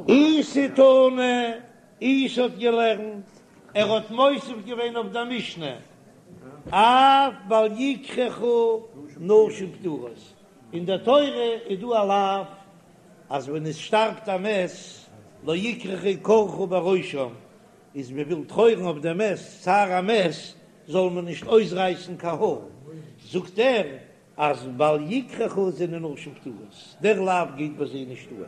איסי תנא, איסי האט געלערנט, ער האט מוסיף געווען אויף דער משנה, אף בל יקרחו נשים פטורות, אין דער תורה איז דא א לאו אז ווען עס שטארבט א מת לא יקרחו קרחה בראשם, איז מען וויל טרויערן אויף דעם מת, צער המת, זאל מען נישט אויסרייסן קיין האר, זאגט ער אז בל יקרחו זענען נשים פטורות, דער לאו גייט ביי זיי נישט אן.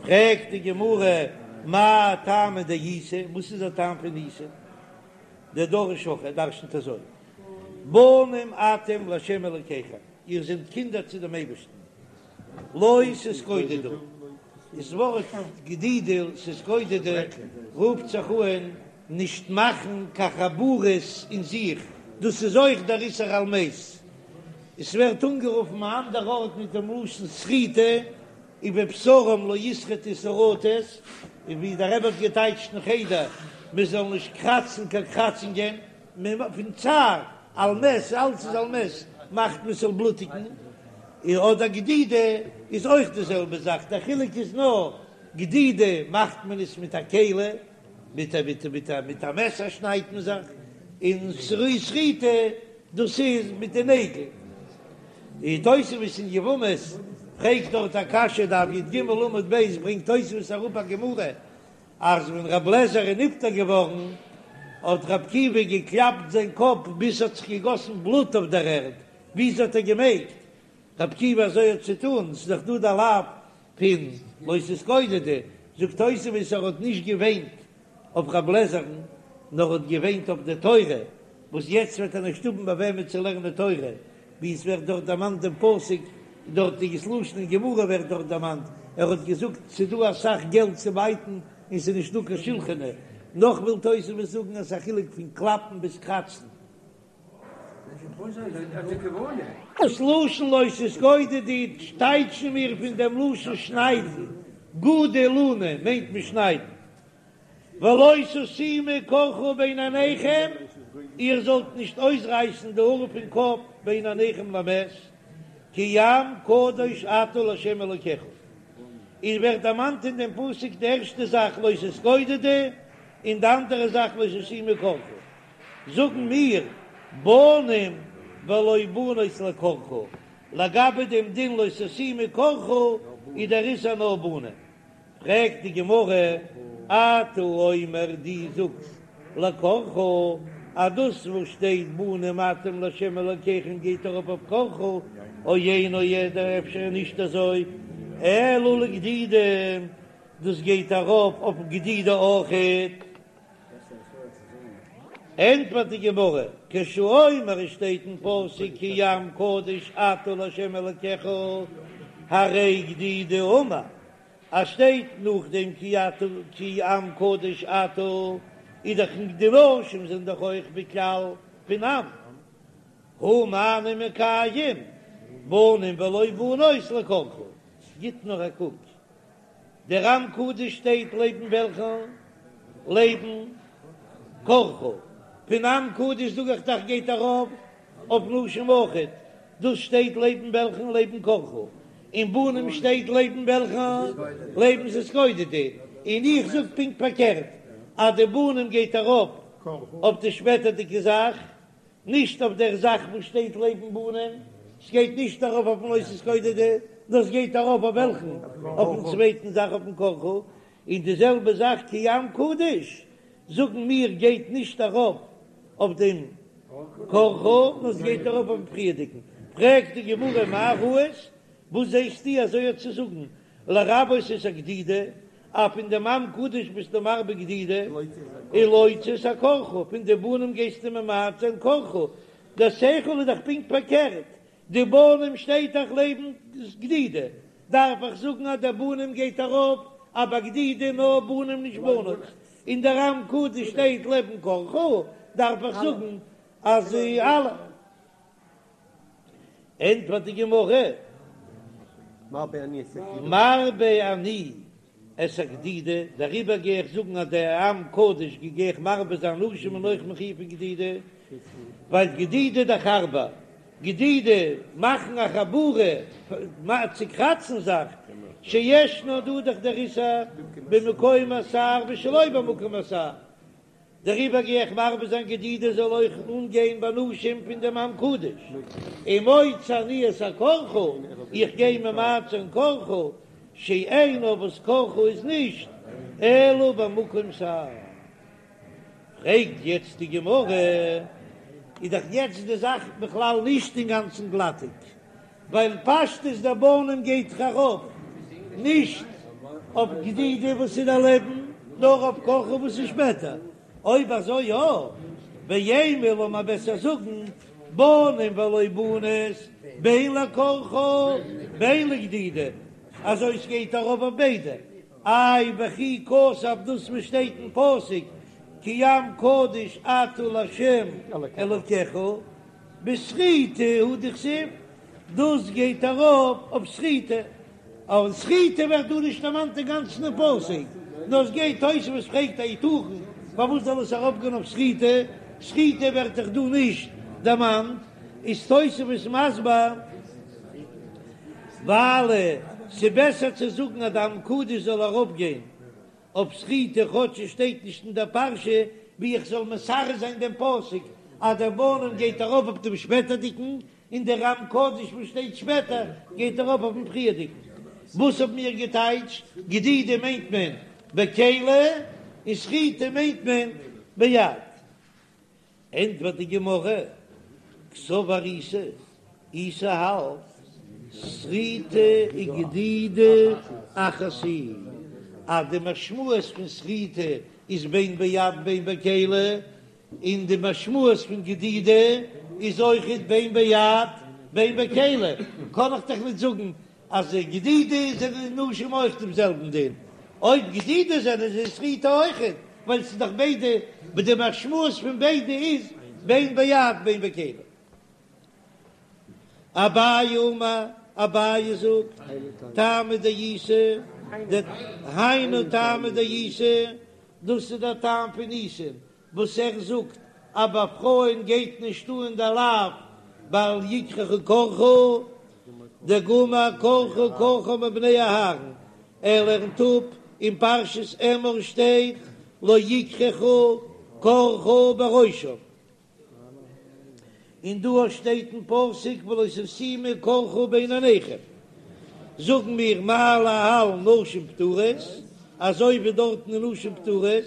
פרעגט די גמרא, מאי טעמא דאיסי, וואס איז דער טעם פון איסי? דדריש הכי, ער דרשנ'ט אזוי, בנים אתם לה' אלקיכם, איר זענט קינדער צו דעם אייבערשטן, לא תתגודדו, דאס ווארט גדידה תתגודדו רופט זיך אן נישט מאכן קיין חבורות אין זיך, דאס איז אויך דער איסור על מת, עס ווערט אנגערופן א אנדער ארט מיט דעם לשון שריטה, ובבשרם לא ישרטו שרטת, און ווי דער רבי האט געטייטשט אין חדר, מען זאל נישט קראצן קיין קראצונגען, פון צער על מת, אלץ איז על מת, מאכט מען ס'זאל בלוטיגן, און אדער גדידה איז אויך די זעלבע זאך, דער חילוק איז נאר, גדידה מאכט מען עס מיט א כלי, מיט א מיט מיט א מיט א מעסער שניידט מען זיך, און שריטה דאס איז מיט די נעגל. און תוספות אין יבמות פרעגט דארט א קשיא, דף י"ג עמוד ב', ברענגט תוספות אראפ א גמרא אז ווען רב לעזער איז נפטר געווארן האט ר' עקיבא געקלאפט זיין קאפ ביז ס'האט זיך געגאסן בלוט אויף דער ערד, וויאזוי האט ער געמעגט ר' עקיבא אזוי האט צו טון, ס'איז דאך דא די לאו פון לא תתגודדו, זאגט תוספות ער האט נישט געוויינט אויף רב לעזער'ן נאר האט געוויינט אויף די תורה וואס יעצט וועט ער נישט האבן ביי וועמען צו לערנען תורה, ווי עס ווערט דארט דערמאנט דעם פסוק, דארט איז דאס לשון אין גמרא ווערט דארט דערמאנט, ער האט געזאגט ס'איז דא אסאך געלט צו בייטן און ס'איז נישט דא קיין שולחני, נאך וויל תוספות זאגן אז ס'איז א חילוק פון קלאפן ביז קראצן. דאס לשון לא תתגודדו טייטשן מיר פון דעם לשון שניידן, גודו לוני מיינט מען שניידן. ולא תשימו קרחה בין עיניכם, איר זאלט נישט אויסרייסן די האר פון קאפ בין עיניכם למת, כי עם קדוש אתה לה' אלוקיך. איז ווערט דערמאנט אין דעם פסוק די ערשטע זאך לא תתגודדו, און די אנדערע זאך לא תשימו קרחה. זאגן מיר, בנים ולא בנות לקרחה, לגבי דעם דין לא תשימו קרחה איז דער איסור נאר בנים. פרעגט די גמרא, אתה אומר דו זאגסט לקרחה אז דאס וואס שטייט בנים אתם לה' אלקיכם גייט ארויף אויף קרחה, או אינו אדער אפשר איז נישט אזוי, אלא לגדידה, דאס גייט ארויף אויף גדידה אויכעט. ענטפערט די גמרא, כשהוא אומר עס שטייט אין פסוק כי עם קדוש אתה לה' אלקיך, הרי גדידה אמור, אז שטייט נאכדעם כי אתה כי עם קדוש אתה, איז דאך די נשים זענען דאך אויך בכלל פון עם, הא מה אני מקיים בנים ולא בנות לקרחה, גיט נאר א קוק דער עם קדוש שטייט לעבן וועלכן? לעבן קרחה. פון עם קדוש זאג איך דאך גייט ארויף אויף נשים אויכעט, דאס שטייט לעבן וועלכן? לעבן קרחה. און בנים שטייט לעבן וועלכן? לעבן תתגודדו. און איך זאג פונקט פארקערט אז די בנים גייט ארויף אויף די שפעטערדיגע זאך, נישט אויף דער זאך וואס שטייט לעבן בנים, ס'גייט נישט ארויף אויפן לא תתגודדו, נאר ס'גייט ארויף אויף וועלכן? אויפן צווייטן זאך אויפן קרחה, און די זעלבע זאך כי עם קדוש, זאגן מיר גייט נישט ארויף אויף דעם קרחה, נאר ס'גייט ארויף אויפן פריערדיגן. פרעגט די גמרא מאי ראית, וואס זעסטו אזוי האט צו זאגן לרבות את הגדידה, אז פון דעם עם קדוש ביסטו מרבה גדידה, ולהוציא את הקרחה, פון די בנים גייסטו ממעט זיין קרחה, דער שכל איז דאך פונקט פארקערט, די בנים שטייט דאך לעבן גדידה, דארף איך זאגן אז דער בנים גייט ארויף אז ביי גדידה נאר בנים נישט בנות, און דער עם קדוש שטייט לעבן קרחה, דארף איך זאגן אז אלע. ענטפערט די גמרא, מרבה אני את הגדידה, דעריבער גיי איך זאגן אז דער עם קדוש גיי איך מרבה זיין נשים זענען אויך מחויב פון גדידה, ווייל גדידה דאך הארבער. גדידה, מאכן א חבורה, צוקראצן זיך, שישנו דא דאך דער איסור במקום השער ושלא במקום השער, דעריבער גיי איך מרבה זיין גדידה זאל אויך אנגיין ביי נשים פון דעם עם קדוש, ומוציא אני את הקרחה, איך גיי ממעט זיין קרחה, שאינה וואס קרחה איז נישט אלא במקום שער. פרעגט יעצט די גמרא, איז דאך יעצט די זאך בכלל נישט אינגאנצן גלאטיג, ווייל פשטות דער בנים גייט דאך ארויף נישט אויף גדידה וואס איז דערלעבן, נאר אויף קרחה וואס איז שפעטער, אויב אזוי יא, ואימא לאמיר בעסער זאגן בנים ולא בנות בין לקרחה בין לגדידה, אזוי ס'גייט ארויף אויף ביידע, איי וכי כתב דאס וואס שטייט אין פסוק כי עם קדוש אתה לה' אלקיך בשריטה הוא דכתיב, דאס גייט ארויף אויף שריטה, אבער שריטה ווערט דא נישט דערמאנט אינגאנצן אין פסוק, נאר עס גייט תוספות פרעגט היתכן פארוואס זאל עס ארויפגיין אויף שריטה, שריטה ווערט דאך דא נישט דערמאנט, איז תוספות מסביר ווייל ס'בעסער צו זאגן אז די עם קדוש זאל ארויפגיין אויף שריטה כאטש עס שטייט נישט אין דער פרשה, ווי איך זאל מסרס זיין דעם פסוק אז דער בנים גייט ארויף אויף דעם שפעטערדיגן, און דער עם קדוש וואס שטייט שפעטער גייט ארויף אויפן פריערדיגן. וואס האבן מיר געטייטשט? גדידה מיינט מען בכלי און שריטה מיינט מען ביד. ענטפערט די גמרא, קסבר איסי, איסי האלט, שריטה וגדידה אחת היא, אז די משמעות פון שריטה איז בין ביד בין בכלי, און די משמעות פון גדידה איז אויכעט בין ביד בין בכלי, קען איך דאך נישט זאגן אז גדידה זענען נשים אויך דעם זעלבן דין, אויב גדידה זענען זיי שריטה אויכעט, ווייל ס'איז דאך ביידע, די משמעות פון ביידע איז בין ביד בין בכלי. אביי אמר, אביי זאגט, טעמא דאיסי, היינו טעמא דאיסי, דאס איז דער טעם פון איסין, וואס ער זאגט אז ביי פרויען גייט נישט אן דער לאו בל יקרחו קרחה, דגמר קרחה קרחה מבני אהרן, ער לערנט אפ אין פרשת אמור שטייט לא יקרחו קרחה בראשם, און דא שטייט אין פסוק ולא תשימו קרחה בין עיניכם, זאגן מיר מה להלן נשים פטורות, אזוי ווי דארטן איז נשים פטורות,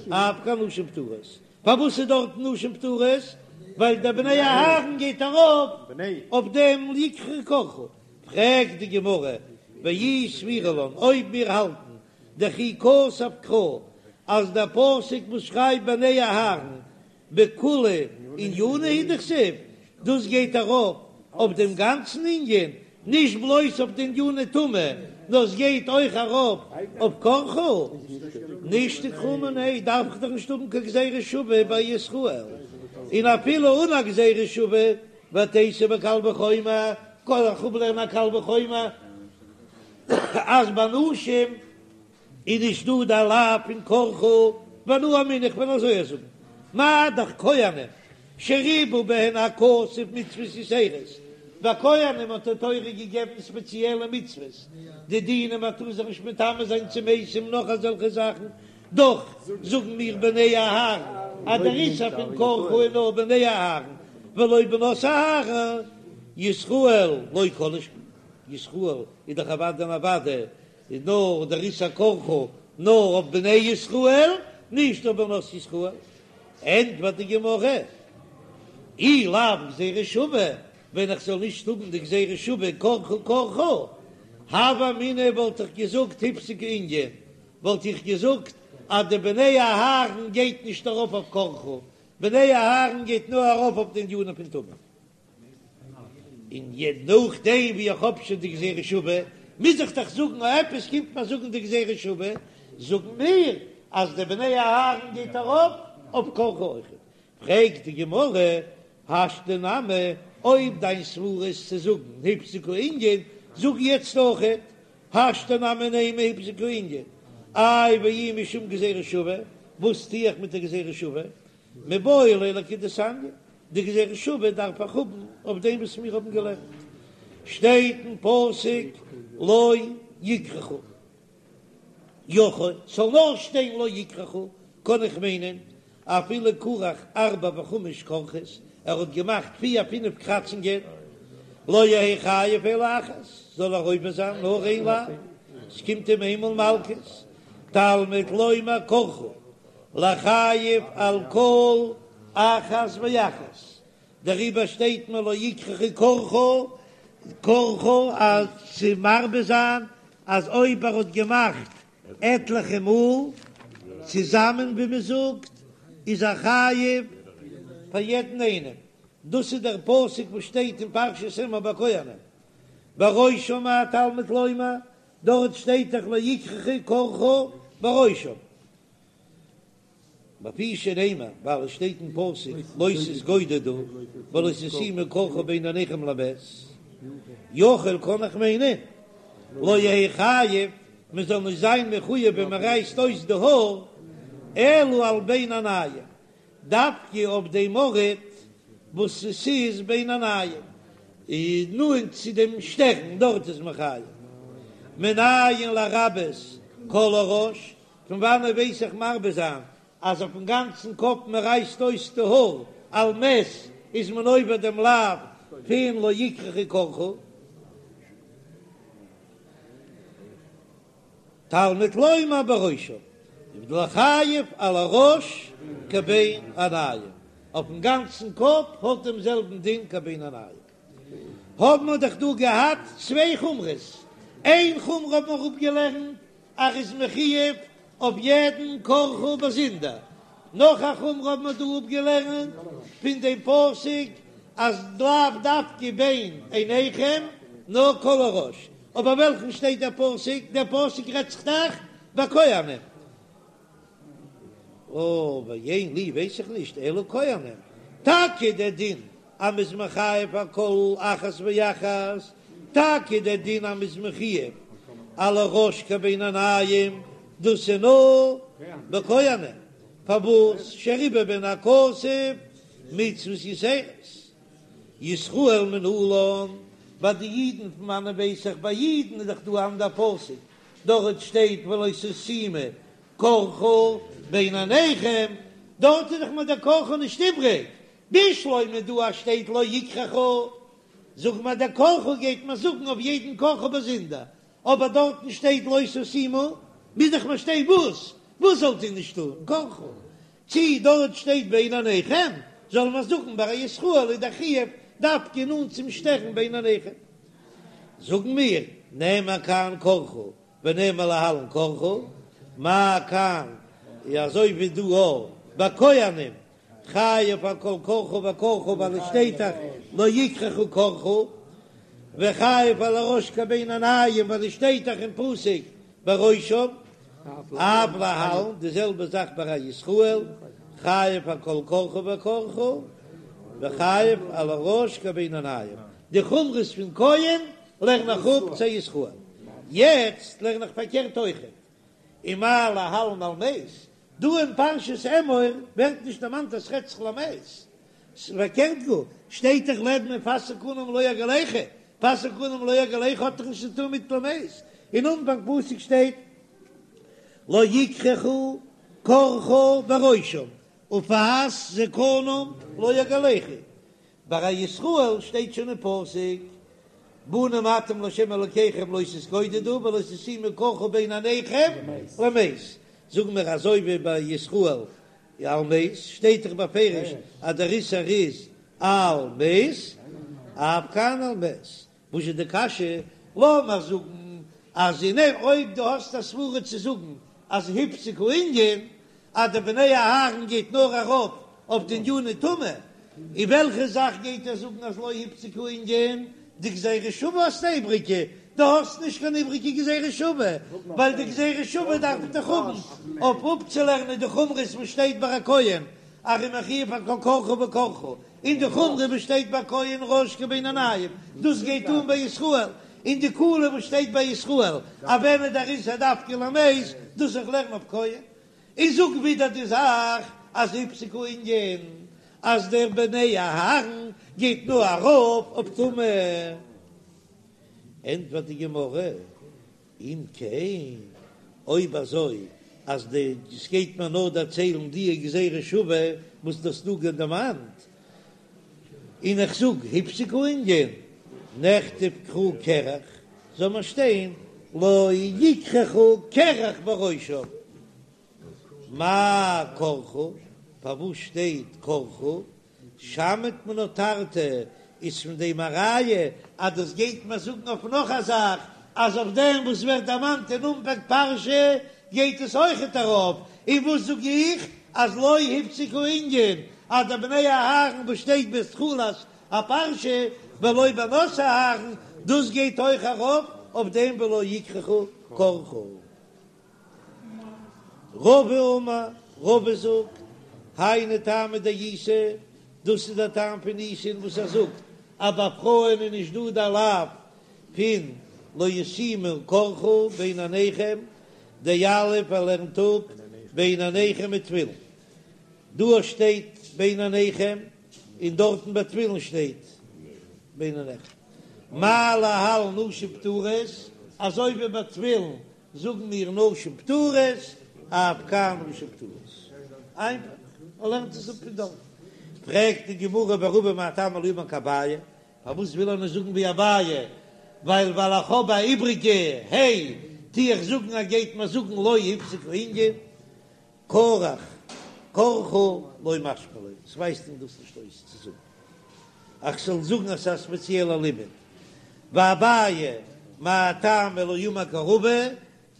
אף כאן נשים פטורות. פארוואס איז דארטן נשים פטורות? ווייל דער בני אהרן גייט ארויף אויף דעם יקרחו קרחה. פרעגט די גמרא, ואי סבירא לן, אויב מיר האלטן דכי כתב קרא אז דער פסוק וואס שרייבט בני אהרן בכוליה ענינא הוא דכתיב, דאס גייט ארויף אויף דעם גאנצן ענין, נישט בלויז אויף די עניני טומאה, נאר עס גייט אויך ארויף אויף קרחה, נישתוק קרא מיניה, דארף איך דאך נישט האבן קיין גזירה שווה ביי ישראל, און אפילו אן א גזירה שווה, ותיתי בקל וחומר, קען איך אפלערנען א קל וחומר אז ביי נשים איז נישט דא די לאו פון קרחה, ואנא אמינא איך וועל אזוי זאגן, מה דאך כהנים שריבה בהן הכתוב מצוות יתירות, ביי כהנים האט די תורה געגעבן ספעציעלע מצוות, די דינים מען טאר זיך נישט מטמא זיין צו מתים נאך אזעלכע זאכן, דאך זאגן מיר בני אהרן אז דער איסור פון קרחה איז נאר בני אהרן ולא בנות אהרן, ישראל לא כל שכן, ישראל איז דאך אוודאי און אוודאי איז נאר דער איסור קרחה נאר אויף בני ישראל, נישט אויף בנות ישראל. ענטפערט די גמרא, אי לאו גזירה שווה, ווען איך זאל נישט האבן די גזירה שווה קרחה קרחה, הוה אמינא וואלט איך געזאגט הפסיק הענין, וואלט איך געזאגט אז די בני אהרן גייט נישט ארויף אויף קרחה, בני אהרן גייט נאר ארויף אויף די ענינים פון טומאה. און נאכדעם ווי איך האב שוין די גזירה שווה, מוז איך דאך זאגן אז עפעס קומט מיר זאגן די גזירה שווה, זאגן מיר אז די בני אהרן גייט ארויף אויף קרחה אויכעט. פרעגט די גמרא, השתא נמי, אויב דיין סברא איז צו זאגן הפסיק הענין, זאג יעצט אויכעט, השתא נמי נימא הפסיק הענין, איי ואי משום גזירה שווה, וואס טו איך מיט די גזירה שווה? מיבעי ליה לכדתניא. די גזירה שוה דארף איך האבן אויף דעם וואס מיר האבן געלערנט, שטייט אין פסוק לא יקרחו. יכול, ס'זאל נאר שטיין לא יקרחו, קען איך מיינען אפילו כרך ארבע וחמש כרכות, ער האט געמאכט פיר פינף קראצונגען, לא יהא חייב אלא אחת, זאל ער עובר זיין נאר איין לאו, ס'קומט אים איינמאל מלקות, תלמוד לומר קרחה, לחייב על כל אחת ואחת, דעריבער שטייט מיר לא יקרחו קרחה, קרחה אז צו מרבה זיין אז אויב ער האט געמאכט עטליכע מאל צוזאמען ווי מען זאגט איז ער חייב פאר יעדן איינעם, דאס איז דער פסוק וואס שטייט אין פרשת אמור ביי כהנים, בראשם מה תלמוד לומר, דארט שטייט דאך לא יקרחו קרחה בראשם. לפי שנאמר, ווייל עס שטייט אין פסוק לא תתגודדו ולא תשימו קרחה בין עיניכם למת, יכול קען איך מיינען לא יהא חייב, מען זאל נישט זיין מחויב ווען מען רייסט אויס די האר, אלא על בין העינים, דווקא אויף דעם ארט וואס עס איז בין העינים, איז נאנט צו דעם שטערן, דארט איז מען חייב. מנין לרבות כל הראש, פון וואנעט ווייס איך מרבה זיין אז אויפן גאנצן קאפ מען רייסט אויס די האר על מת איז מען עובר דעם לאו פון לא יקרחו קרחה? תלמוד לומר בראשם לחייב על הראש כבין העינים, אויפן גאנצן קאפ האט דעם זעלבן דין כבין העינים. האבן מיר דאך דא געהאט צוויי חומרות, איין חומרא האבן מיר אפגעלערנט אז ער איז מחויב אויף יעדן קרחה באזונדער. נאך א חומרא האבן מיר דא אפגעלערנט פון דעם פסוק אז לאו דווקא בין עיניכם נאר כל הראש. אבער וועלכן שטייט דער פסוק? דער פסוק רעדט זיך דאך ביי כהנים. אוי ואין לי ווייס איך נישט אלא כהנים. טאקע דער דין אז מ'איז מחייב על כל אחת ואחת, טאקע דער דין אז מ'איז מחויב על הראש כבין העינים, דאס איז נאר בכהנים, פארוואס שריבה בהן הכתוב מצוות יתירות, ישראל מנלן, ביי די אידן פון וואנען ווייס איך ביי אידן איז דאך דא אן אנדער פסוק, דארט שטייט ולא תשימו קרחה בין עיניכם, דארט איז דאך מיר דער קרחה נישט איבריג, בשלמא דא אז שטייט לא יקרחו, זאג מיר דער קרחה גייט מען זאגן אויף יעדן קרחה באזונדער, אבער דארטן שטייט לא תשימו, מוז דאך מיר שטיין וואס? וואס זאלט איר נישט טון? קרחה. צי דארט שטייט בין עיניכם, זאל מען זאגן ביי א ישראל איז דער חיוב דווקא נאנט צום שטערן בין עיניכם. זאגן מיר, נאמר כאן קרחה ונאמר להלן קרחה, מה כאן, אזוי ווי דא אויך ביי כהנים חייב על כל קרחה וקרחה ווייל עס שטייט דאך לא יקרחו קרחה, וחייב על הראש כבין העינים ווייל עס שטייט דאך אין פסוק בראשם, אף להלן די זעלבע זאך ביי א ישראל חייב על כל קרחה וקרחה וחייב על הראש כבין העינים, די חומרות פון כהן לערן איך אפ צו ישראל, יעצט לערן איך פארקערט אויכעט, ומה להלן על מת, דא אין פרשת אמור ווערט נישט דערמאנט אז ס'רעדט זיך למת, ס'פארקערט גאר, שטייט דאך לעבן ופאת זקנם לא יגלחו, פאת זקנם לא יגלחו האט דאך נישט צו טון מיט למת, אין אנפאנג פסוק שטייט לא יקרחו קרחה בראשם ופאת זקנם לא יגלחו, ביי א ישראל שטייט שוין אין פסוק בנים אתם לה' אלקיכם לא תתגודדו ולא תשימו קרחה בין עיניכם למת, זאגן מיר אזוי ווי ביי ישראל על מת שטייט דאך בפירוש אז דער איסור איז על מת, אף כאן על מת, וואס איז די קשיא? לאמיר זאגן אז אין אויב דו האסט א סברה צו זאגן אז הפסיק הענין אז די בני אהרן גייט נאר ארויף אויף די עניני טומאה, און וועלכע זאך גייט ער זאגן אז לא הפסיק הענין? די גזירה שווה האסט א איבריגע, דו האסט נישט קיין איבריגע גזירה שווה, ווייל די גזירה שווה דארף איך דאך האבן אויף אפצולערנען די חומרות וואס שטייט ביי א כהן אז ער איז מחויב על כל קרחה וקרחה, און די חומרא וואס שטייט ביי כהן ראש כבין העינים, דאס גייט אן ביי ישראל, און די קולא וואס שטייט ביי ישראל אז ווען איז דער איסור דווקא למת, דאס איך לערן אויף כהן. און זאג ווידער די זאך אז הפסיק הענין. אז דער בני אהרן גייט נאר ארויף אויף טומאה. ענטפערט די גמרא, אם כן, אויב אזוי אז די עס גייט מיר נאר דערציילן די גזירה שווה וואס דו האסט דא דערמאנט, און איך זאג הפסיק הענין, נכתוב קרא קרח, זאל מען שטיין לא יקרחו קרח בראשם. מאי קרחה? פארוואס שטייט קרחה? שמעת מינה תרתי איז פון דעם א ראיה אז דאס גייט מען זאגן אויף נאך א זאך, אז אויף דעם וואס ווערט דערמאנט אין אנפאנג פרשה גייט עס אויכעט ארויף, און וואס זאג איך אז לא הפסיק הענין אז די בני אהרן וואס שטייט בתחילת הפרשה ולא בנות אהרן דאס גייט אויך ארויף אויף דעם ולא יקרחו קרחה. רבא אמר, רבא זאגט, היינו טעמא דאיסי, דאס איז דער טעם פון איסי'ן וואס ער זאגט אז ביי פרויען איז נישט דא דער לאו פון לא ישימו קרחה בין עיניכם, דיליף ער לערנט אפ בין עיניכם מתפילין, דא שטייט בין עיניכם און דארטן ביי תפילין שטייט בין עיניכם, מה להלן נשים פטורות, אזוי ווי ביי תפילין זאגן מיר נשים פטורות, אף כאן נשים פטורות. איינפאך, ער לערנט עס אפ פון דארט. פרעגט די גמרא ורבא מאי טעמא לא אמר כאביי, פארוואס וויל ער נישט זאגן ווי אביי, ווייל ווייל איך האב א איבריגע ה' טו איך זאגן ער גייט מיר זאגן לא הפסיק הענין. קרח, קרחה לא משמע ליה, עס ווייזט אים דאס נישט אויס צו זאגן אז כ'זאל זאגן אז ס'איז א ספעציעלע לימוד. ואביי מאי טעמא לא אמר כרבא,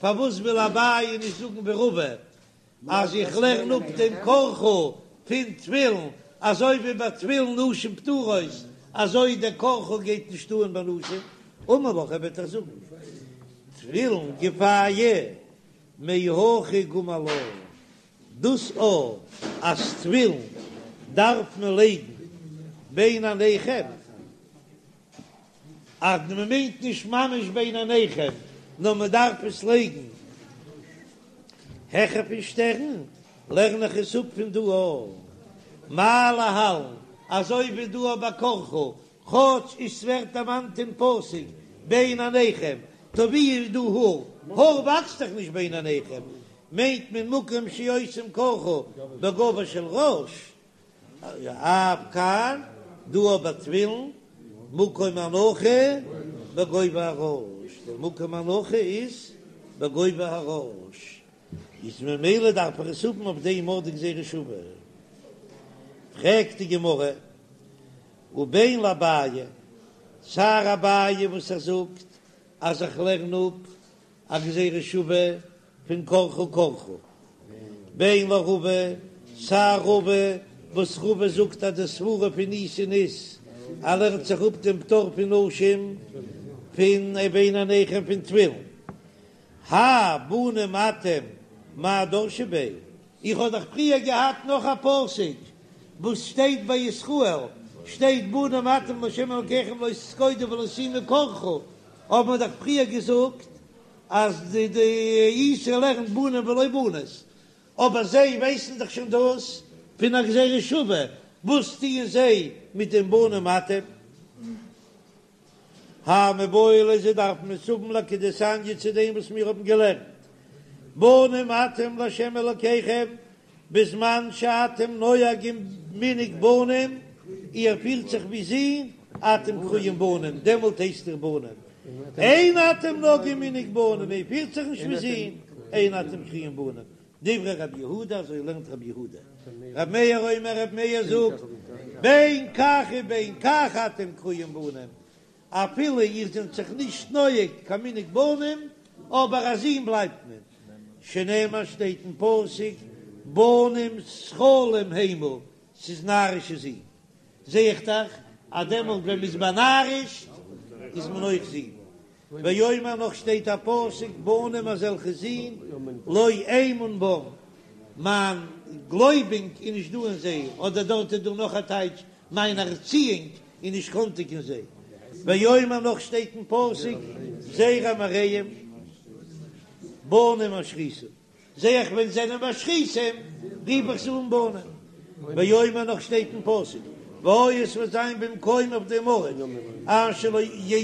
פארוואס וויל אביי נישט זאגן ווי רבא אז איך לערן אפ דעם קרחה פון תפילין, אזוי ווי ביי תפילין נשים פטורות, אזוי דער קרחה גייט נישט אן ביי נשים, אמר לך ער וועט דיר זאגן תפילין גופייהו מהכא גמר לה, דאס א אז תפילין דארף מען לייגן בין עיניכם, אז מען מיינט נישט ממש בין עיניכם, נאר מען דארף עס לייגן העכער פון שטערן, לערן איך עס אפ פון דא א מה להלן, אזוי ווי דא א ביי קרחה, כאטש עס ווערט דערמאנט אין פסוק בין עיניכם, טא ווי איז דא האר? האר וואקסט דאך נישט בין עיניכם, מיינט מען מקום שעושים קרחה בגובה של ראש, אף כאן, דא ביי תפילין, מקום הנחה בגובה הראש, דער מקום הנחה איז בגובה הראש, איז ממילא דארף איך עס האבן אויף דעם ארט די גזירה שווה. פרעגט די גמרא, ובין לאביי, סיי אביי וואס ער זאגט אז איך לערן אפ א גזירה שווה פון קרחה קרחה, בין לרבא, סיי רבא וואס רבא זאגט אז די סברה פון איסי'ן איז ער לערנט זיך אפ דעם פטור פון נשים פון בין עיניכם פון תפילין, האי בנים אתם מאי דרשי ביה. איך האב דאך פריער געהאט נאך א פסוק וואס שטייט ביי ישראל, שטייט בנים אתם לה' אלקיכם לא תתגודדו ולא תשימו קרחה, האבן מיר דאך פריער געזאגט אז די די איסי לערנט בנים ולא בנות, אבער זיי ווייסן דאך שוין דאס פון א גזירה שווה, וואס טוען זיי מיט דעם בנים אתם? האי מיבעי ליה זיי דארפן עס האבן לכדתניא צו דעם וואס מיר האבן געלערנט בנים אתם לה' אלקיכם בזמן שאתם נוהגים מנהג בנים, איר פירט זיך ווי זין, אתם קרויים בנים, דעמאלט הייסט איר בנים, אין אתם נוהגים מנהג בנים, איר פירט זיך נישט ווי זין, אין אתם קרויים בנים, דברי רבי יהודה, אזוי לערנט רבי יהודה. רבי מאיר אומר, רבי מאיר זאגט, בין כך ובין כך אתם קרויים בנים, אפילו איר זענט זיך נישט נוהג קיין מנהג בנים, אבער א זון בלייבט מען, שנאמר שטייט אין פסוק, בנים סכלים המה, ס'איז נארישע זין. זע איך דאך אז דעמאלט ווען מ'איז באנארישט איז מען אויך זין. ואומר נאך שטייט א פסוק בנים אזעלכע זין לא אמון בם, מיין גלויבונג איז נישט דא אין זיי, אדער דארט איז דא נאך א טייטש מיין ערציאונג איז נישט קאנטיג אין זיי, ואומר נאך שטייט אין פסוק זרע מרעים בנים משחיתים. זע איך ווען זענען משחיתים רוף איך זיי אן בנים. ואומר נאך שטייט אין פסוק והיה עס וועט זיין במקום אויף דעם ארט אשר לא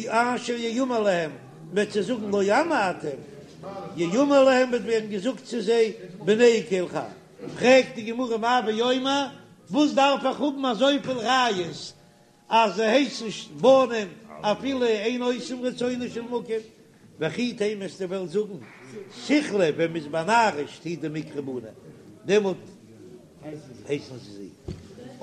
אשר יאמר להם מ'וועט זיי זאגן לא עמי אתם יאמר להם וועט ווערן געזאגט צו זיי בני קל חי פרעגט די גמרא מאי ואומר וואס דארף איך האבן אזויפיל ראיות אז זיי הייסן נישט בנים אפילו אין עושים רצונו של מקום, וכי תימא וועסטו וועלן זאגן סכלי ווען מ'איז באנארישט הוא דמיקרו בני דעמאלט הייסן זיי זין,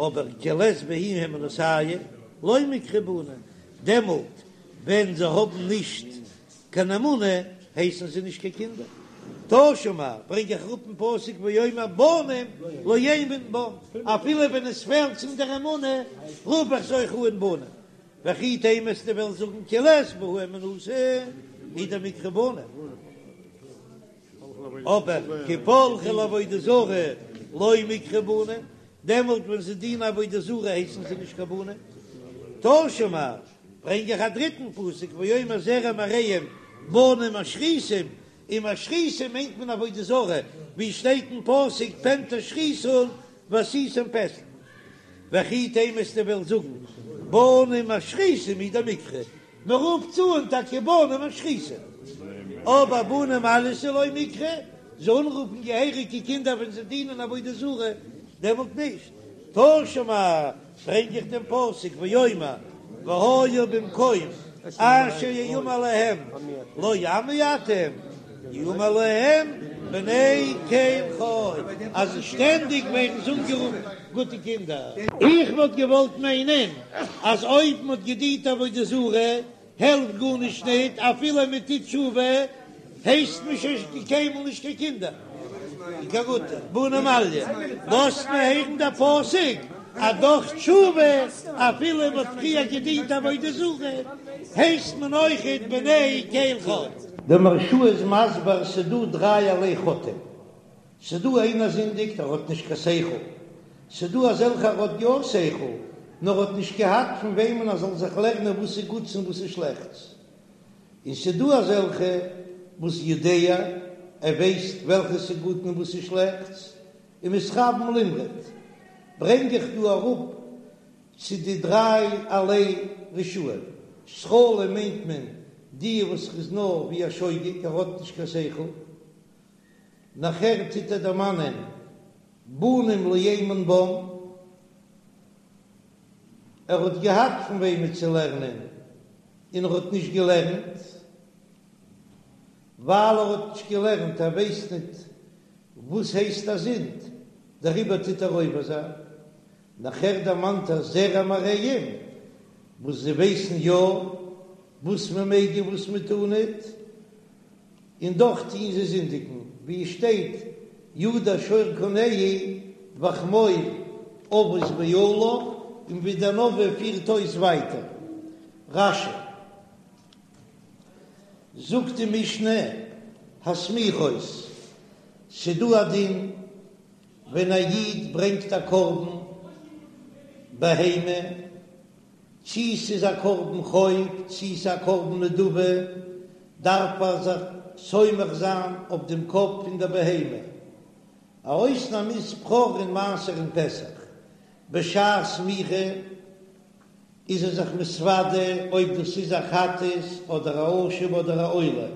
אבער כי לית בהו הימנותייהו לא מיקרו בני דעמאלט ווען זיי האבן נישט קיין אמונה הייסן זיי נישט קיין קינדער. תא שמע, ברענג איך אראפ אין פסוק ואומר בנים לא אמון בם, אפילו ווען עס פעלט צום דער אמונה רוף איך זיי אויך אן בנים. וכי תימא וועסטו וועלן זאגן כי לית בהו הימנותא הוא דמיקרו בנים. אבער כי פלחי לעבודה זרה לא מיקרו בנים, דעמאלט ווען זיי דינען עבודה זרה הייסן זיי נישט קיין בנים. תא שמע, ברענג איך א דריטן פסוק ואומר זרע מרעים בנים משחיתים, און משחיתים מיינט מען עבודה זרה, ווי שטייט אין פסוק פן תשחיתון ועשיתם פסל. וכי תימא וועסטו וועלן זאגן בנים משחיתים הוא דמיקרו, מען רופט זיי אן טאקע בנים משחיתים, אבער בני מעלייתא לא מיקרו, זיי אנרופן געהעריגע קינדער ווען זיי דינען עבודה זרה, דעמאלט נישט. תא שמע, ברענג איך דעם פסוק ואומר והיה במקום אשר יאמר להם לא עמי אתם יאמר להם בני קל חי, אז שטענדיג ווערן זיי אנגערופן גוטע קינדער. איך וואלט געוואלט מיינען אז אויב מען האט געדינט עבודה זרה העלפט גארנישט ניט, אפילו מען טוט תשובה הייסט מען שוין קיינמאל נישט קיין קינדער, קיין גוטע בני מעליא, לאזט מען הערן דער פסוק אז דורך תשובה אפילו מען האט פריער געדינט עבודה זרה הייסט מען אויכעט בני קל חי. דער מהרש"א איז מסביר ס'דא דרייערליי חוטאים. ס'דא איינער זינדיגט ער האט נישט קיין שכל, ס'דא אזעלכע ער האט יא שכל נאר האט נישט געהאט פון וועמען ער זאל זיך לערנען וואס איז גוטס און וואס איז שלעכטס, און ס'דא אזעלכע וואס יודע ער ווייסט וועלכע ס'איז גוט און וואס איז שלעכטס, ומתכוון למרוד, ברענג איך דא אראפ צו די דרייערליי רשעים, סכלים מיינט מען די וואס איז נאר ווי א שוגג ער האט נישט קיין שכל, נאכער טוט ער דערמאנען בנים לא אמון בם, ער האט געהאט פון וועמען צו לערנען און ער האט נישט געלערנט, ווייל ער האט נישט געלערנט, ער ווייסט ניט וואס הייסט א זינד, דעריבער טוט ער עובר זיין. נאכער דערמאנט ער זרע מרעים, וואס זיי ווייסן יא וואס מען מעג און וואס מען טאר ניט, און דאך טוען זיי זינדיגן, ווי עס שטייט ידע שור קונהו וחמור אבוס בעליו, און ווי דער נביא פירט אויס ווייטער. רש"י זאגט די משנה הסמיכות, ס'דא א דין ווען א איד ברענגט א קרבן בהמה, צי ס'איז א קרבן חוב צי ס'איז א קרבן נדבה, דארף ער זיך סומך זיין אויף דעם קאפ פון דער בהמה. א אויסנאם איז בכור און מעשר און פסח. בשעת סמיכה איז ער זיך מתוודה אויב דאס איז א חטאת אדער א אשם אדער א עולה.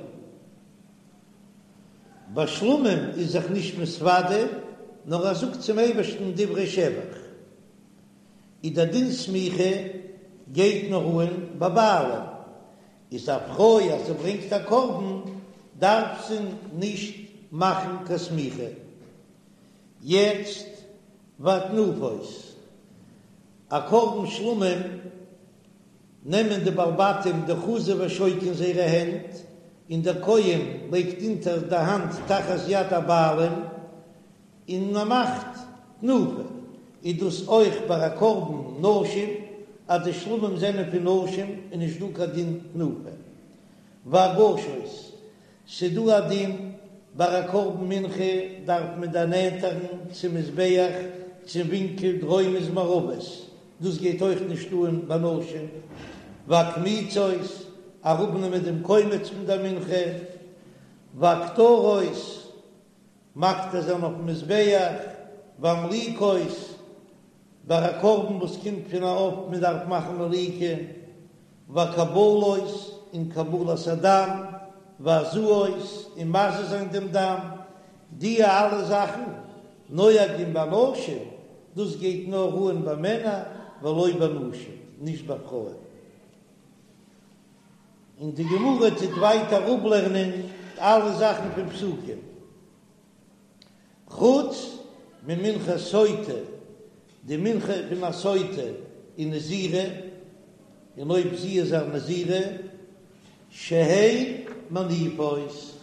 ביי שלמים איז זיך נישט מתוודה, נאר ער זאגט צום אייבערשטן דברי שבח. איז דער דין סמיכה גייט נאר אן ביי בעלים, איז א פרוי אז זי ברענגט א קרבן דארף זי נישט מאכן קיין סמיכה. יעצט והתנופות, א קרבן שלמים נעמען די בעלי בתים די חזה ושוק אין זייערע הענט, און דער כהן לייגט אונטער די האנט תחת יד הבעלים, און מען מאכט תנופה, איז דאס אויך ביי א קרבן נשים, אז די שלמים זענען פון נשים איז נישט דא קיין דין תנופה. והגשות, ס'דא א דין ביי א קרבן מנחה דארף מען דערנענטערן צום מזבח צום ווינקל דרומית מערבית, דאס גייט אויך נישט אן ביי נשים. והקמיצות, אראפנעמען דעם קומץ פון דער מנחה. והקטרות, מקטיר זיין אויפן מזבח, והמליקות. ביי א קרבן וואס קומט פון א עוף מען דארף מאכן מליקה, והקבלות און קבלת הדם, והזאות און מזה זיין דעם דם, די אלע זאכן נוהגין באנשים, דאס גייט נאר אן ביי מענער ולא בנשים, נישט ביי פרויען. און די גמרא טוט ווייטער אפלערנען אלע זאכן פון פסוקים. חוץ ממנחת סוטה, די מנחה פון א סוטה ונזירה, און אויב זי איז א נזירה, שהן מניפות,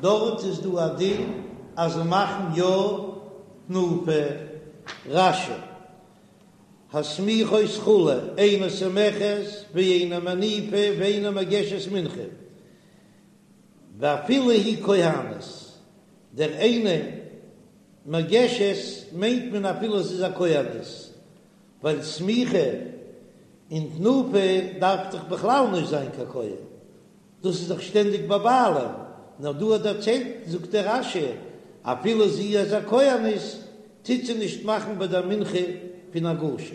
דארט איז דא א דין אז זיי מאכן יא תנופה. רש"י, הסמיכות כו', אינה סומכת ואינה מניפה ואינה מגשת מנחה. ואפילו היא כהנת, דער אינה מגשת מיינט מען אפילו זי איז א כהנת, ווייל סמיכה און תנופה דארף דאך בכלל נישט זיין קיין כהן, דאס איז דאך שטענדיג ביי בעלים, נאר דא האט דערציילט זאגט דער רש"י אפילו זי איז א כהנת טוט זי נישט מאכן ביי דער מנחה פון הגשה.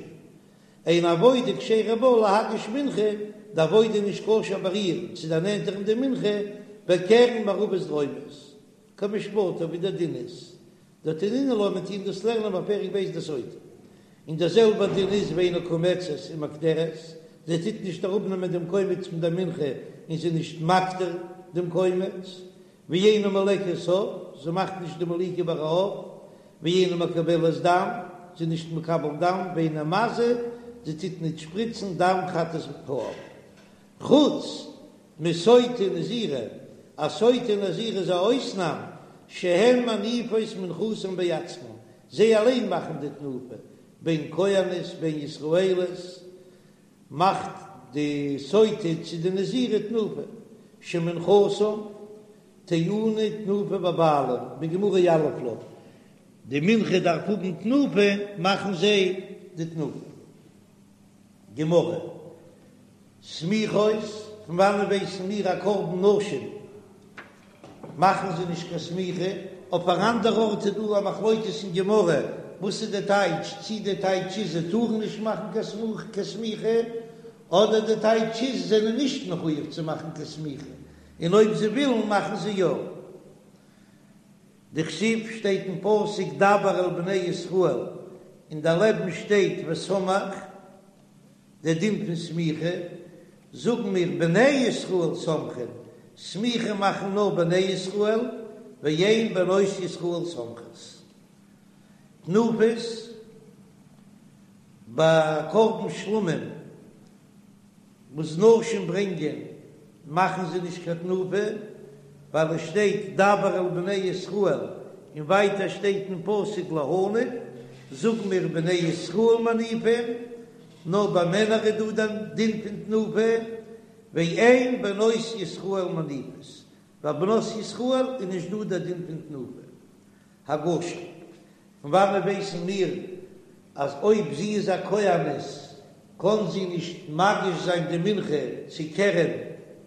אין עבודה כשרה בה להגיש מנחה, די עבודה איז נישט כשר ביי איר צו דערנענטערן די מנחה בקרן מערבית דרומית, כמשפטה ווי דער דין איז, דתנינן לה מיר טוען דאס לערנען בפרק ב' דסוטה, און דער זעלבער דין איז ואינה קומצת ומקטרת, זי טוט נישט אראפנעמען דעם קומץ פון דער מנחה און זי איז נישט מקטיר דעם קומץ, ואינה מולקת עוף, זי מאכט נישט די מליקה ביי א עוף, ואינה מקבלת דם, זי איז נישט מקבל דם, ואינה מזה, זי טוט נישט שפריצן דם חטאת העוף. חוץ מסוטה ונזירה, א סוטה און נזירה איז א אויסנאם, שהן מניפות מנחתן בעצמן, זיי אליין מאכן די תנופה, בין כהנות בין ישראליות, מאכט די סוטה צו די נזירה תנופה, שמנחתן טעונה תנופה בבעלים, בגמרא יליף לה, די מנחה דארף האבן תנופה, מאכן זיי די תנופה. גמרא, סמיכות, פון וואנען ווייסן מיר א קרבן נשים מאכן זיי נישט קיין סמיכה, אויף אן אנדער ארט איז דא א מחלוקת אין גמרא וואס איז די טייטש, צי די טייטש איז זיי טארן נישט מאכן קיין סמיכה, אדער די טייטש איז זיי זענען נישט מחויב צו מאכן קיין סמיכה, און אויב זיי ווילן מאכן זיי יא. דכתיב שטייט אין פסוק דבר אל בני ישראל, און דערלעבן שטייט וסמך. דער דין פון סמיכה, זאגן מיר בני ישראל סומכין, סמיכה מאכן נאר בני ישראל, ואין בנות ישראל סומכות. תנופות, ביי קרבן שלמים וואס נשים ברענגען מאכן זיי נישט קיין תנופה, ווייל עס שטייט דבר אל בני ישראל, און ווייטער שטייט אין פסוק להניף, זאגן מיר בני ישראל מניפים, נאר ביי מענער איז דא דער דין פון תנופה, ואין בנות ישראל מניפות, ביי בנות ישראל איז נישט דא דער דין פון תנופה. הגשה. פון וואנעט ווייסן מיר אז אויב זי איז א כהנת קען זי נישט מגיש זיין די מנחה צו קרן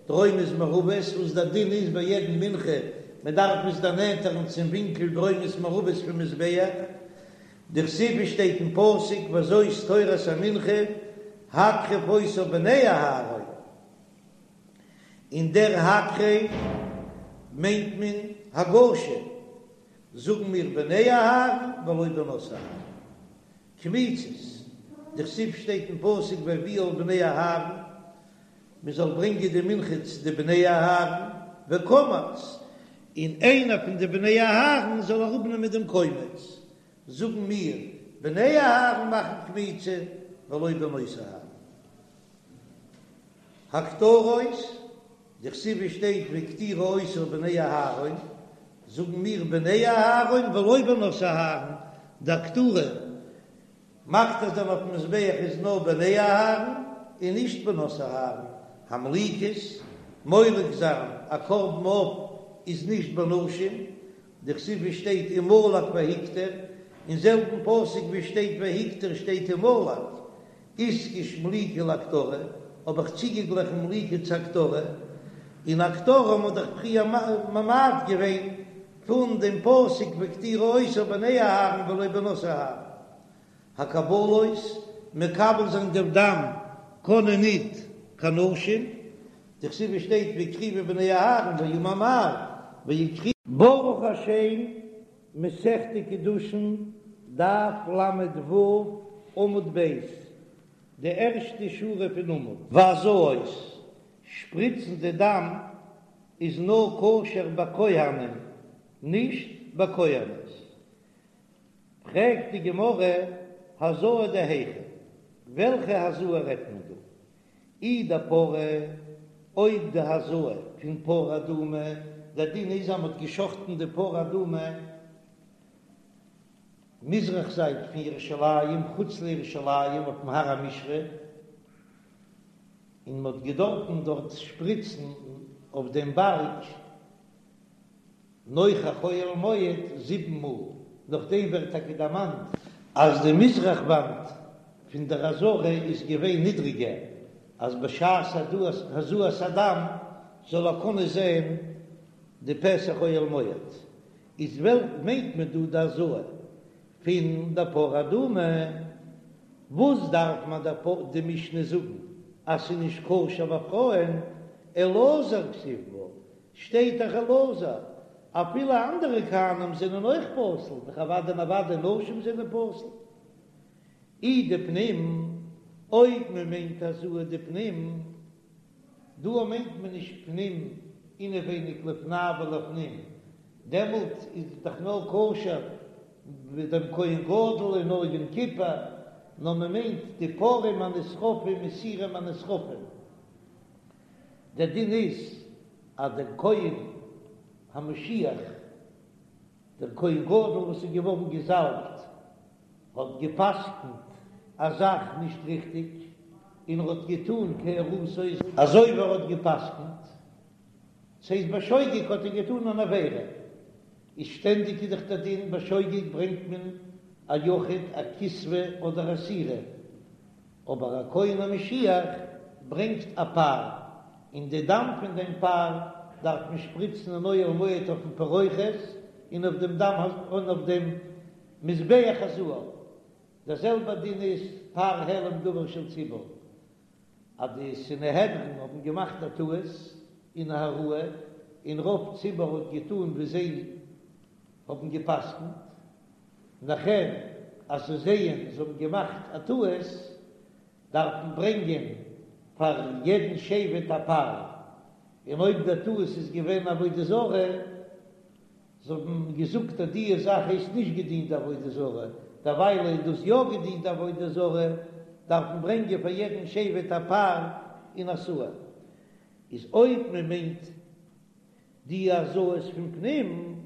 דרומית מערבית, וואס דער דין איז ביי יעדן מנחה מען דארף עס דערנענטערן צום ווינקל דרומית מערבית פון מזבח, דכתיב שטייט אין פסוק וזאת תורת המנחה הקרב אותה בני אהרן, און דער הקרב מיינט מען הגשה. זאגן מיר בני אהרן ולא בנות אהרן. קמיצות, דכתיב שטייט אין פסוק והביאו אל בני אהרן, מען זאל ברענגען די מנחה צו די בני אהרן, וקמץ, און איינער פון די בני אהרן זאל אראפנעמען דעם קומץ, זאגן מיר בני אהרן מאכן קמיצה ולא בנות אהרן. הקטרות, דכתיב שטייט והקטירו אותה בני אהרן, זאגן מיר בני אהרן ולא בנות אהרן, די הקטרה מקטיר זיין אויפן מזבח איז נאר בני אהרן און נישט בנות אהרן, המליקות, מולק זיין א קרבן עוף איז נישט בנשים, דכתיב שטייט ומלק והקטיר, אין זעלבן פסוק ווי שטייט והקטיר שטייט ומלק, איתקש מליקה להקטרה, האב איך צוגעגליכן מליקה צו הקטרה, און הקטרה האט מען דאך פריער ממעט געווען פון דעם פסוק והקטירו אותה בני אהרן ולא בנות אהרן. הקבלות, מקבל זיין דעם דם קענען ניט קיין נשים, דכתיב שטייט והקריבו בני אהרן ואמר מר ויקריבו. ברוך השם, מסכת קידושין, דף ל"ו, עמוד ב', די ערשטע שורה פון עמוד. והזאות, שפריצן די דם איז נאר כשר ביי כהנים, נישט ביי כהנות. פרעגט די גמרא, הזאה דהיכא, וועלכע הזאה רעדט מען דא? אי דפרה, אויב די הזאה פון פרה אדומה, דער דין איז אז מען האט געשחטן די פרה אדומה מזרח זייט פון ירושלים, חוץ לירושלים אויפן הר המשחה, און מען האט געדארפן דארט שפריצן אויף דעם בארג, נוכח אוהל מועד זיבן מאל, נאכדעם ווערט טאקע דערמאנט אז די מזרח וואנט פון דער עזרה איז געווען נידריגער, אז בשעת הזאת הדם זאל ער קענען זען די פתח אוהל מועד, איז וועלכע מיינט מען דא די הזאה פון די פרה אדומה? וואס דארף מען די משנה זאגן אז ס'איז נישט כשר ביי פרויען, אלעזר כתיב בה, שטייט דאך אלעזר, אפילו אנדערע כהנים זענען אויך פסול, דאך אוודאי און אוודאי נשים זענען פסול. אי דפנים, אויב מען מיינט הזאה דפנים, דא מיינט מען נישט פנים אינעווייניג לפני ולפנים, דעמאלט איז דאך נאר כשר ביי דעם כהן גדול און נאר יום כיפור, נאר מען מיינט די פרים הנשרפים און שעירים הנשרפים. דער דין איז אז דער כהן המשיח, דער כהן גדול וואס איז געווארן געזאלבט, האט גע'פסק'נט א זאך נישט ריכטיג, און ער האט געטאן כהוראתו אזוי ווי ער האט גע'פסק'נט, ס'הייסט בשוגג האט ער געטאן אן עבירה, איז שטענדיג איז דאך דער דין בשוגג ברענגט מען א יחיד א כשבה אדער א שעירה, אבער א כהן המשיח ברענגט א פר, און די דם פון דעם פר דארף מען שפריצן אין אוהל מועד אויפן פרוכת און אויף דעם דם און אויף דעם מזבח הזהב. דער זעלבער דין איז פר העלם דבר של ציבור, אז די סנהדרין האבן געמאכט א טעות אין הוראה, און רוב ציבור האט געטאן ווי זיי האבן גע'פסק'נט, נאכער אז זיי זעען זיי האבן געמאכט א טעות, דארף מען ברענגען פאר יעדן שבט א פר, און אויב דער טעות איז געווען עבודה זרה, זיי האבן געזאגט אז דיע זאך הייסט נישט געדינט די עבודה זרה, דערווייל איז דאס יא געדינט די עבודה זרה, דארף מען ברענגען פאר יעדן שבט א פר און א שעיר. איז אויב מען מיינט די הזאות פון פנים,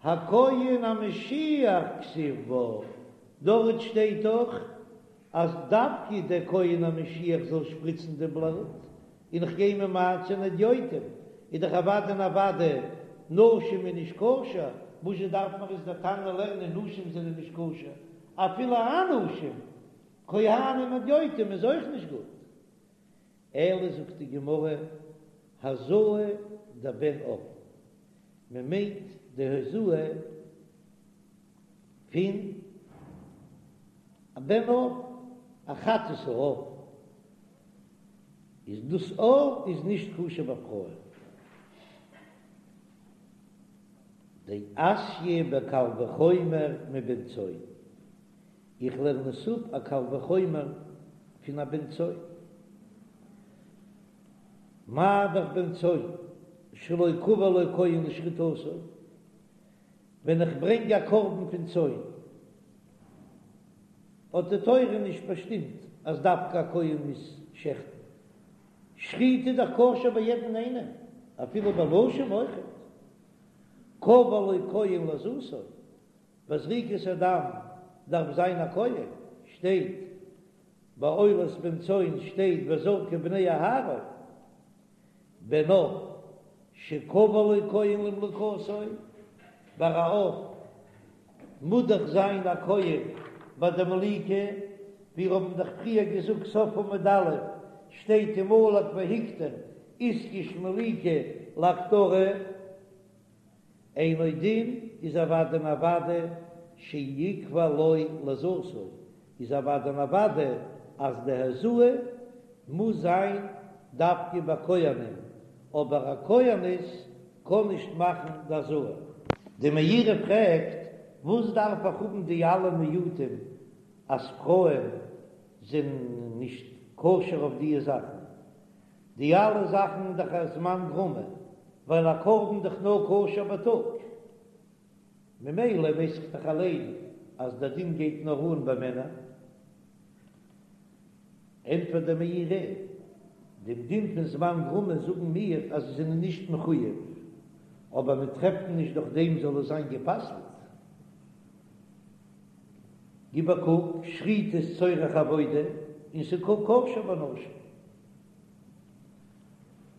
הכהן המשיח כתיב בה, דארט שטייט דאך אז דווקא דער כהן המשיח זאל שפריצן די בלוט, און איך גיי ממעט זיין הדיוטים, איז דאך אוודאי און אוודאי נשים איז נישט כשר, וואזשע דארף מיר עס דער תנא לערנען נשים זענען נישט כשר, אפילו אנשים, כהנים הדיוטים איז אויך נישט גוט. אלא זאגט די גמרא, הזאה דבן עוף, מען מיינט די הזאה פון א בן עוף, א חטאת העוף, איז דאס עוף איז נישט כשר ביי פרויען. דאתיא בקל וחומר מבן צאן, איך לערן עס אפ א קל וחומר פון א בן צאן. מה דאך בן צאן שלא קבע לו כהן לשחיטתו, ווען איך ברענג א קרבן פון צאן האט די תורה נישט באשטימט אז דווקא א כהן מוז שעכטן, שחיטה איז דאך כשר ביי יעדן איינעם, אפילו ביי נשים אויכעט, קבע לו כהן להזאתו, ביי זריקת הדם דארף זיין א כהן, שטייט ביי עולת בן צאן שטייט וזרקו בני אהרן, בן עוף שקבע לו כהן למליקתו, ביי א עוף מוז דאך זיין א כהן ביי די מליקה, ווי מיר האבן דאך פריער געזאגט סוף עמוד א' שטייט ומלק והקטיר איתקש מליקה להקטרה. אינו דין איז אוודאי און אוודאי שיקבע לו להזאתו. איז אוודאי און אוודאי אז די הזאה מוז זיין דווקא ביי כהנים, אבער א כהנת קען נישט מאכן די הזאה. די מאירי פרעגט, וואס דארף איך האבן די אלע מיעוטים אז פרויען זענען נישט כשר אויף דיע זאכן? די אלע זאכן איז דאך א זמן גרמא, ווייל א קרבן דאך נאר כשר בייטאג, ממילא ווייס איך דאך אליין אז דער דין גייט נאר אן ביי מענער. ענטפערט דער מאירי, דעם דין פון זמן גרמא זאגן מיר אז זיי זענען נישט מחויב, אבער מען טרעפט נישט דורך דעם זאל עס זיין גע'פסל'ט. גיב א קוק, שחיטה איז צורך עבודה און ס'איז כשר בנשים.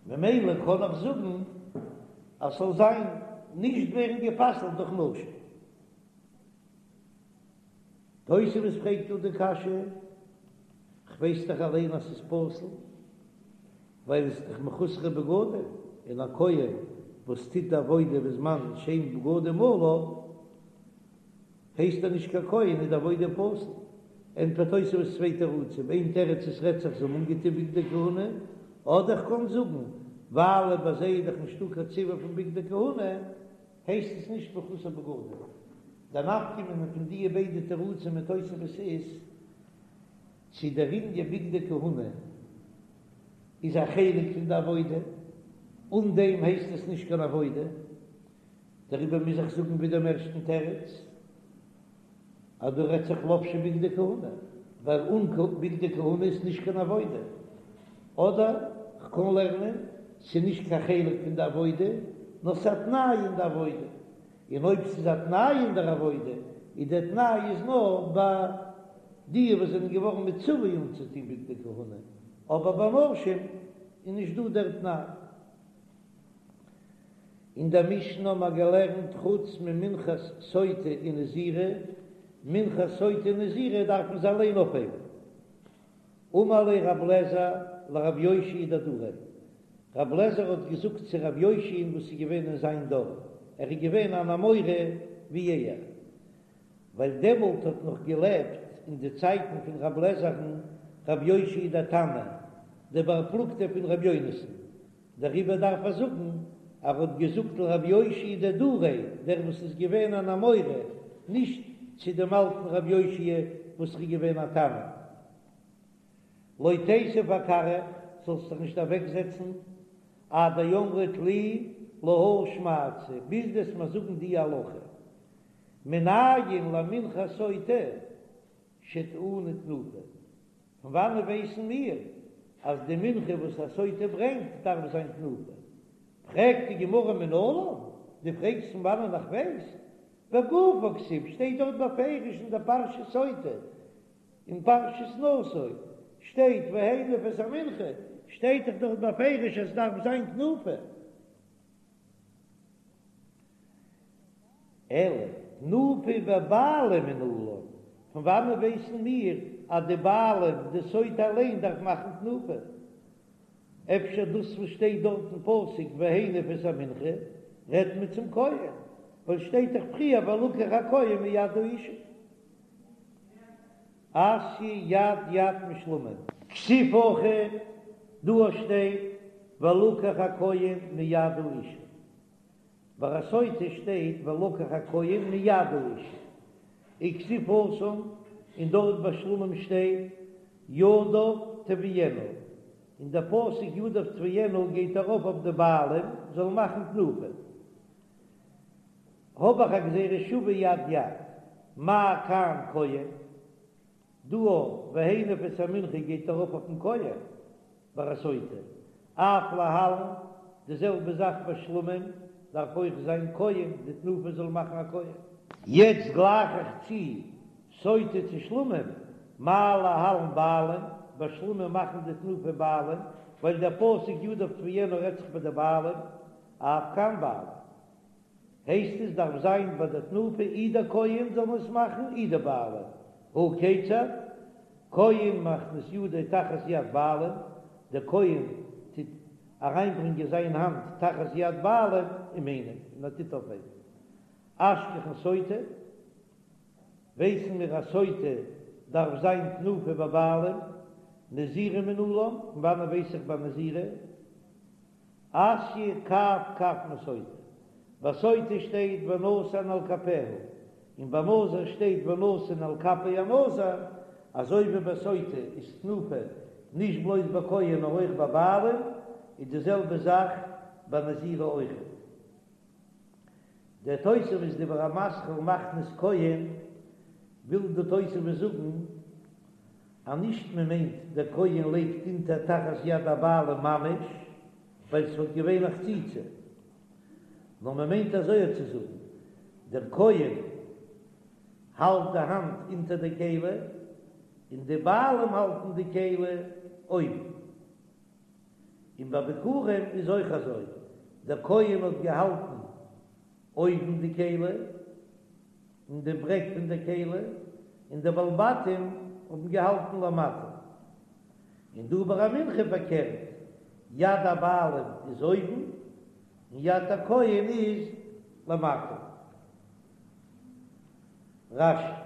ממילא קען איך זאגן אז ס'זאל זיין נישט ווערן גע'פסל'ט דורך נשים. תוספות פרעגט דא די קשיא, כ'ווייס דאך אליין אז ס'איז פסול, ווייל עס איז דאך מחוסרי בגדים, און א כהן וואס טוט די עבודה בזמן שאין בגדים עליו, הייסט ער נישט קיין כהן איז די עבודה פסול. ענטפערט תוספות צוויי תירוצים, איין תירוץ עס רעדט זיך זיי האבן אנגעטון בגדי כהונה, אדער כ'קען זאגן ווייל ביי זיי איז דאך נישטא קיין ציווי פון בגדי כהונה, הייסט עס נישט מחוסר בגדים. די נפקא מינה פון דיע ביידע תירוצים אין תוספות איז, צו דער ענין בגדי כהונה איז א חלק פון די עבודה, אן דעם הייסט עס נישט קיין עבודה, דעריבער מוז איך זאגן ווי דעם ערשטן תירוץ, אז דא רעדט זיך לבשו בגדי כהונה, ווייל אן בגדי כהונה איז נישט קיין עבודה. אדער כ'קען לערנען, ס'איז נישט קיין חלק פון די עבודה, נאר ס'איז א תנאי אין די עבודה. און אויב ס'איז א תנאי אין דער עבודה, איז דער תנאי איז נאר ביי די וואס זענען געווארן מצווה אנצוטון בגדי כהונה, אבער ביי נשים איז נישט דא דער תנאי. אין דער משנה האבן מיר געלערנט חוץ ממנחת סוטה און נזירה, מנחת סוטה און נזירה דארף מען זיי אליין אויפהייבן. אמר ליה רב לעזר לרב יאשיה דדריה, רב לעזר האט געזאגט צו רב יאשיה'ן וואס איז געווען אין זיין דור, ער איז געווען אן אמורא ווי ער, ווייל דעמאלט האט נאך געלעבט אין די צייטן פון רב לעזער'ן רב יאשיה דער תנא, דער בר פלוגתא פון רב יונתן, דעריבער דארף ער זאגן ער האט געזאגט לרב יאשיה דדריה, דער וואס איז געווען אן אמורא, נישט צו דעם אלטן רב יאשיה וואס איז געווען א תנא. לא תיתיב אכרעך, זאלסט דיך נישט אוועקזעצן, עד דאמרת לי להא שמעתתא, ביז דו וועסט מיר זאגן די הלכה, מנין למנחת סוטה שטעונה תנופה. פון וואנעט ווייסן מיר אז די מנחה וואס א סוטה ברענגט דארף זיין תנופה? פרעגט די גמרא מנלן, דו פרעגסט פון וואנען איך ווייס? בגופה כתיב שטייט דארט בפירוש אין דער פרשת סוטה, אין פרשת נשא שטייט והניף את המנחה, שטייט דאך דארט בפירוש אז עס דארף זיין תנופה. אלא תנופה בבעלים מנלן, פון וואנען ווייסן מיר אז די בעלים, די סוטה אליין דארף מאכן תנופה? אפשר דאס וואס שטייט דארט אין פסוק והניף את המנחה רעדט מען צום כהן, ווייל שטייט דאך פריער ולקח הכהן מיד האשה. אתיא יד יד משלמים. כתיב הכא, דא שטייט ולקח הכהן מיד האשה. ביי א סוטה שטייט ולקח הכהן מיד האשה וכתיב התם, און דארט ביי שלמים שטייט ידיו תביאינה, און דער פסוק ידיו תביאינה גייט ארויף אויף די בעלים זאלן מאכן תנופה. האב איך א גזירה שווה יד יד, מה כאן כהן, דא והניף את המנחה גייט ארויף אויפן כהן. ביי א סוטה, אף להלן, די זעלבע זאך ביי שלמים, דארף אויך זיין כהן, די תנופה זאל מאכן א כהן. יעצט גלייך איך צו סוטה צו שלמים, מה להלן בעלים, ביי שלמים מאכן די תנופה בעלים, ווייל דער פסוק ידיו תביאינה רעדט זיך ביי די בעלים, אף כאן בעלים. הייסט עס דארף זיין ביי די תנופה אי דער כהן זאל עס מאכן אי די בעלים, הא כיצד? כהן מכניס ידו תחת יד בעלים, דער כהן טוט אריינברענגען זיין האנט תחת יד בעלים ומניף און ער טוט אויפהייבן. אשכחן סוטה, ווייסן מיר אז סוטה. דארף זיין תנופה ביי בעלים, נזירה מנלן, פון וואנען ווייס איך ביי נזירה? אתיא קב קב מסוטה, ביי סוטה שטייט ונתן על כפיה, און ביי נזיר שטייט ונתן על כפי הנזיר, אזוי ווי ביי סוטה איז תנופה נישט בלויז ביי כהן נאר אויך ביי בעלים, איז די זעלבע זאך ביי נזירה אויכעט. דער תוספות דיבור המתחיל מכניס כהן, וויל די תוספות זאגן אז נישט מען מיינט דער כהן לייגט אונטער תחת יד הבעלים ממש, ווייל ס'וואלט געווען א חציצה, נאר מען מיינט אזוי צו זאגן, דער כהן האלט די האנט אונטער די כלי, און די בעלים האלטן די כלי אויבן. און ביי ביכורים איז אויך אזוי, דער כהן האט געהאלטן אויבן די כלי, אין די ברעג פון די כלי, און די בעלי בתים האבן געהאלטן למטה. און דא ביי א מנחה פארקערט, יד הבעלים איז אויבן, און יד הכהן איז למטה. רש"י.